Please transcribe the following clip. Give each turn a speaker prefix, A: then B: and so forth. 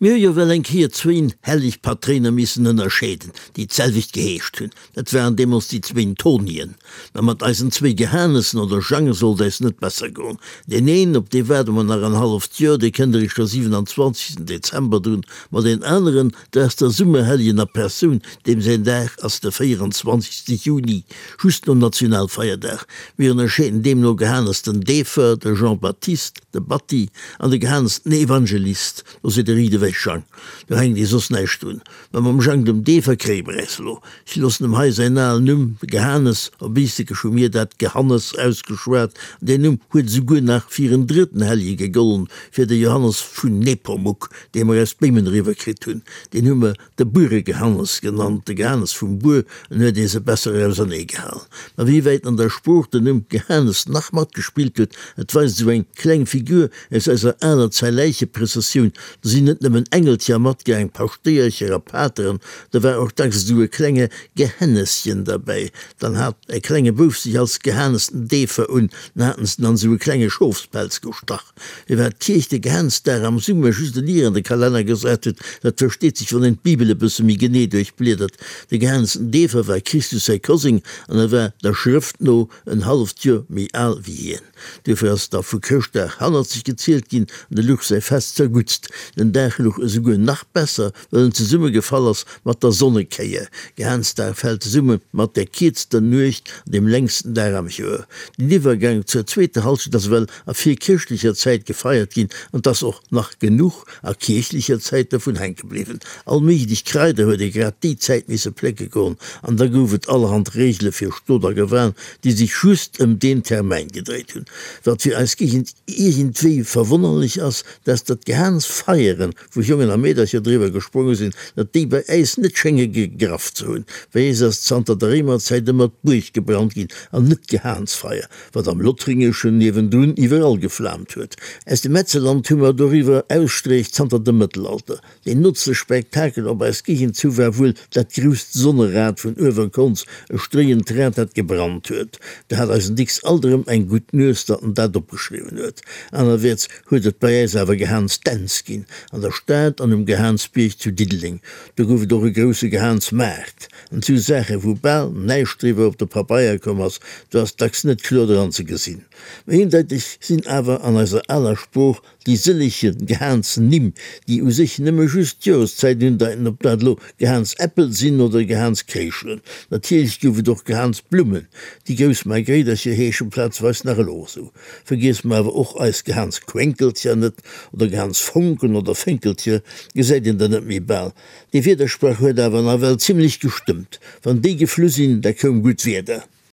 A: Mir hu jo well eng Kéier zwéin helleg Patréiner missen ënnerscheeden, déi d'selwecht geheescht hunn. Dat waren deemools déi zwéin Tonien. Mä mat eisen zwéi Gehanessen oder Jange sollt äis net besser goen. Deen een, op dee waarde mer nach en halleft Joer, dee kënnt eréischt de 27. Dezember drun, ma deen aneren, dat ass der Summerhelljen a Persoun, deem säin Dag ass de 24. Juni, just nom Nationalfeierdag. Mir ënnerscheeden deemno Gehanes den Deefer, de Jean-Baptiste, de Batti, an de Gehanes den Evangelist. Do seet de Riit ewech, Jang, do hänkt ee soss näischt un. Mä mam Jang dem Deefer kréie mer äis elo. Ech loossen em hei säin alen Numm, de Gehanes, op Iistekesch hu mir dat Gehannes ausgeschwat, an deen Numm huet esouguer nach fir en drëtten Hellje gegollen, fir de Johannes vun Nepomuk, dee mer aus Béimen eriwwer kritt hunn. Deen hu mer De Bueregehannes genannt, de Gehannes vum Buer, en huet ee se besser auserneegehalen. Ma wéi wäit an der Sprooch den Numm Gehannes nach matgespillt huet, dat weist esou eng kleng Figur aus eiser aler Zäiläicheprëssessioun. Do sinn net nëmmen Engelcher matgaang, Paschtéiercher a Pateren, do war och dacks esou e klenge Gehänneschen derbäi. Dann hat e klenge Bouf sech als Gehannes den Deefer un, dann haten se en an esou e klenge Schofspelz gestach. Firwat d'Kierch de Gehaansdag am Summer just en Ier an de Kalenner gesat huet, dat versteet sech, wann een d'Bibel e bësse méi genee duerchbliedert. De Gehaansten Deefer war Christus säi Koseng an e war der Schrëft no en halleft Joer méi al wéi hien. Duerfir ass da vu Chrëschtdag hannerzeg gezielt ginn an de luch säi Fest zerguttst. Den Dag luch esouguer nach besser, well en zesummegefall ass mat der Sonnekéier. Gehaansdag fält zesumme mat der kierzter Nuecht an dem längsten Dag am Joer. Den Iwwergank zur zweeter Halschent ass ewell a virkirchlecher Zäit gefeiert ginn an 't ass och nach genuch a kierchlecher Zäit dervun hänke bliwwen. All méiglech Kraider huet ee grad déi Zäit misse plécke goen an da gouf et allerhand Reegele fir Stot a Gewan, déi sech just ëm deen Termäin gedréit hunn. Wat fir eis Géigend iergendwéi verwonnerlech ass, dat ass, datt d'Gehaansfeieren, wou Jongen a Meedercher driwwer gespronge sinn, datt déi bei äis net schénge gegraff ze hunn. Bei äis ass zanter der Réimerzäit ëmmer d'Buerg gebrannt ginn an net d'Gehaansfeier, wat am Lothringeschen niewendrun iwwerall geflaamt huet. Aus dem Metzeland hu mer doriwwer Ausstreech zanter dem Mëttelalter. Deen nootste Spektakel op eis Géigend zu war wuel dat grousst Sonnerad vun Uewerkonz, e stréiend Rad, dat gebrannt huet. Do hat eisen Dicks alt erëm eng gutt Nues, datt en dat opgeschriwwen huet. Anerwäerts huet et bei äis awer Gehaansdänz ginn, an der Stad an um Gehaansbierg zu Diddeleng. Do gouf et och e grousse Gehaansmaart. An sou Saache wou bal näischt driwwer op de Pabeier komm ass, do ass dacks net kloer dran ze gesinn. Mä eendeiteg sinn awer an eiser aler Sprooch déi sëllege Gehaansnimm, déi u sech nëmme just d'Joreszäit undeiten, ob dat elo Gehaansäppel sinn oder Gehaanskréischelen. Natierlech gouf et och Gehaansblummen, déi grouss Margréidercher heeschen plazeweis nach elo esou. Vergiesse mer awer och eis Gehaansquenkelcher net, oder Gehaansfonken oder Fénkelcher gesäit een der net méi bal. Dee Wiedersprach huet awer nawell zimlech gestëmmt, wann déi geflu sinn, da koum gutt Wieder.